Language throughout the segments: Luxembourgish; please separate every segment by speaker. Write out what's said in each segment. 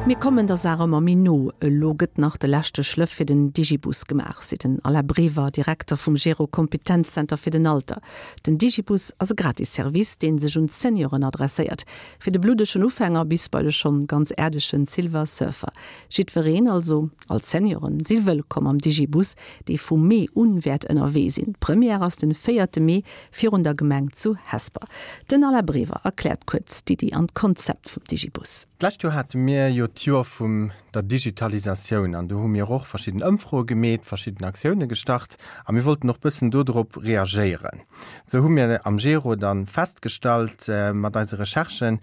Speaker 1: Mir kommen der Saach ëmmer méi no. Elo gëtt nach de leschte Schlëff fir den Digibus gemaach, seet den Alain Brever, Direkter vum Gero Kompetenzzenter fir den Alter. Den Digibus ass e gratis Service, dee sech un d'Senioren adresséiert. Fir de bluddegen Ufänger bis bei de schonn ganz äerdegen Silver Surfer. Jiddwereen, also all d'Senioren, si wëllkomm am Digibus, dee vum Mee un wäert ënnerwee sinn. D'Première ass den véierte Mee virun der Gemeng zu Hesper. Den Alain Brever erkläert kuerz d'Iddi an d'Konzept vum Digibus.
Speaker 2: D'lescht Joer hate mir jo d'Joer vum der Digitalisatioun an do hu mir och verschidden Ëmfroe gemeet, verschidden Aktioune gestart a mir wollten och bëssen dodrop reagéieren. Sou hu mir am Gero dann festgestallt mat eise Recherchen,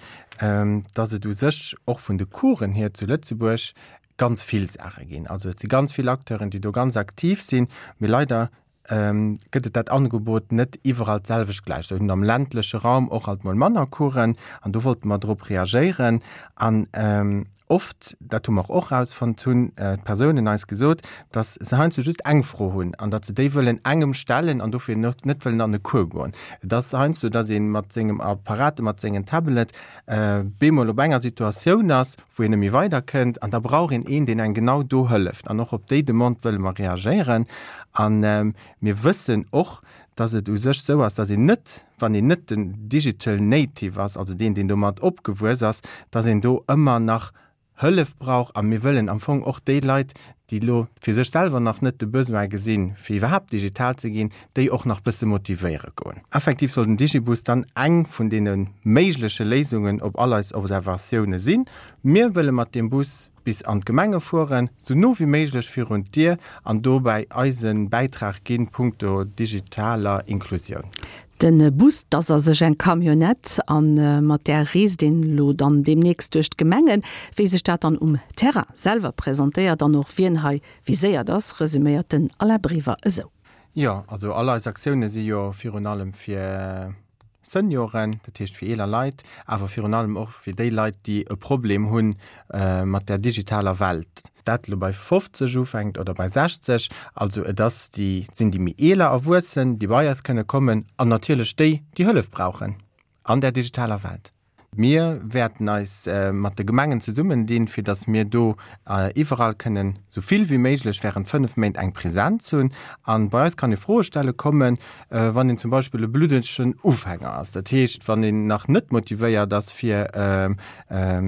Speaker 2: dass et u sech och vun de Coursen hier zu Lëtzebuerg ganz vill Saache ginn. Also et si ganz vill Acteuren, déi do ganz aktiv sinn, mee leider gëtt et dat Angebot net iwwerall d'selwecht gläich. Sou hunn am ländleche Raum och alt mol manner Coursen an do wollte mer drop reagéieren. An oft, dat hu mer och erausfonnt, hunn d'Persounen eis gesot, datt se heiansdo just eng Fro hunn an datt se déi wëllen engem stellen an dofir net wëllen an e Cours goen. Et ass heiansdo, datt ee mat sengem Apparat, mat sengen Tablet bemol op enger Situatioun ass, wou een net méi weider kënnt an da brauch een een, deen engem genau do hëlleft. An och op déi Demande wëlle mer reagéieren. A mir wëssen och, dass et u sech esou ass, dass een net, wann een net den Digital Native ass, also deen, deen domat opgewuess ass, dass een do ëmmer nach Hëllef brauch. A mir wëllen am Fong och déi Leit, déi elo fir sech selwer nach net de Besoin gesinn, fir iwwerhaapt digital ze ginn, déi och nach bësse motivéiere goen. Effektiv soll den Digibus dann eng vun deene méigleche Léisungen op all eis Observatioune sinn. Mir wëlle mat deem Bus bis an d'Gemenge fueren, sou no wéi méiglech virun d'Dier an dobäi eise Bäitrag ginn punkto digitaler Inklusioun.
Speaker 1: Den Bus, 't ass a sech eng Camionnette an mat där reest een elo dann deemnächst duerch d'Gemengen. Wéi sech dat dann um Terrain selwer presentéiert an och wien hei viséiert ass, resuméiert den Alain Brever esou.
Speaker 2: Jo, also all eis Aktioune si jo virun allem fir Senioren, dat heescht fir eeler Leit, awer virun allem och fir déi Leit, déi e Problem hu mat der digitaler Welt. Dat elo bei 50 ufänkt oder bei 60, also et ass déi, et sinn déi méi eeler Erwuessen, déi bei eis kënne kommen an natierlech déi, déi Hëllef brauchen an där digitaler Welt. Mir wäerten eis mat de Gemengen zesummendinn, fir datt mir do iwwerall kënnen esou vill wéi méiglech während 5 Méint eng Präsenz hunn. A bei eis kann ee Froe stelle kommen, wann een zum Beispill e bluddegen Ufänger ass. Dat heescht, wann een nach net motivéiert ass, fir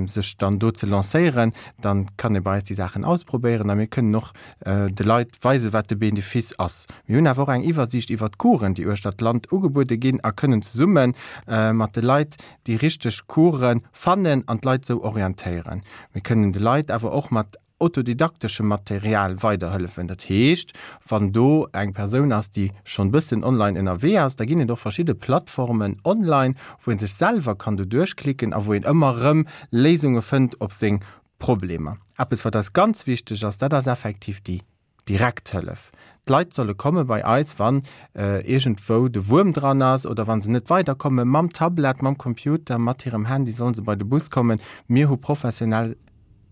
Speaker 2: sech dann do ze lancéieren, da kann ee bei eis déi Saachen ausprobéieren a mir kënnen och de Leit weisen, wat de Benefice ass. Mir hunn awer och eng Iwwersiicht iwwer d'Coursen, déi uechter d'Land ugebuede ginn a kënnen zesumme mat de Leit déi richteg Coursen fannen an d'Leit sou orientéieren. Mir kënnen de Leit awer och mat autodidakteschem Material weiderhëllefen. Dat heescht, wann do eng Persoun ass, déi schonn bëssen online ënnerwee ass, da ginn et och verschidde Plattformen online, wou ee sech selwer kann do duerchklicken a wou een ëmmer erëm Léisunge fënnt op seng Problemer. Eppes, wat eis ganz wichteg ass, dat ass effektiv déi Direkt Hëllef. D'Leit solle komme bei eis, wann iergendwou de Wuerm dran ass oder wa se net weiderkomme mam Tablet, mam Computer, mat hirem Handy, solle se bei de Bus kommen. Mir hu professionell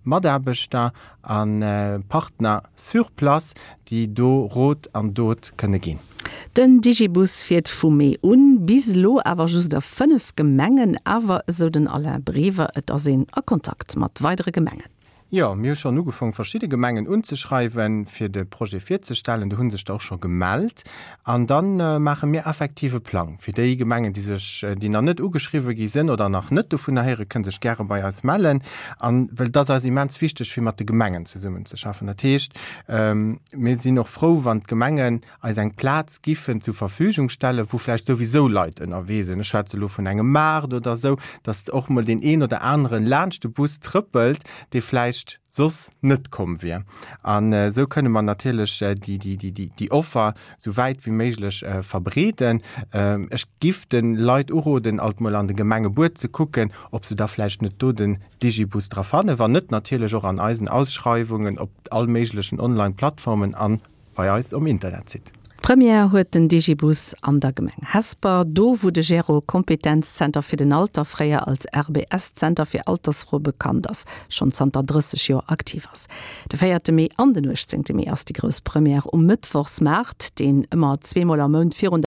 Speaker 2: Mataarbechter a Partner sur place, déi do Rot an Dot kënne ginn.
Speaker 1: Den Digibus fiert vu Mee un, bis elo awer just a 5 Gemengen. Awer, esou den Alain Brever, et ass een a Kontakt mat weidere Gemengen.
Speaker 2: Jo, mir hu schonn ugefong verschidde Gemengen unzeschreiwen, fir de Projet virzestellen. Do hu sech der och scho gemellt. An da maache mir effektiv e Plang fir déi Gemengen, déi sech, déi nach net ugeschriwwe gi sinn oder nach net dovunner héieren, kënne sech gäre bei eis mellen. An well et ass eis immens wichteg, fir mat de Gemengen zesummenzeschaffen. Dat heescht, mir sinn och frou, wann d'Gemengen eis eng Plaz giffen zur Verfügung stellen, wou vläicht souwisou Leit ënnerwee sinn, ech schwätze elo vun engem Maart oder esou, dass och mol deen een oder aneren laanscht de Bus trëppelt, dee vläicht soss net komm wier. An esou kënne mer natierlech déi Offer esou wäit wéi méiglech verbreeden. Ech giff de Leit uroden, alt mol an de Gemengebuet ze kucken, ob se da vläicht net do den Digibus dra fannen. Wann net, natierlech och an eisen Ausschreiwungen op all méiglechen Online-Plattformen an Bei eis um Internetsite.
Speaker 1: Première huet den Digibus an der Gemeng Hesper, do wou de Gero Kompetenzzenter fir den Alter, fréier als RBS-Zenter fir Altersfroe bekannt ass, schonn zanter 30 Joer aktiv ass. De véierte Mee an den 18 Mee ass déi grouss Première um Mëttwochsmaart, deen ëmmer zweemol am Mount virun.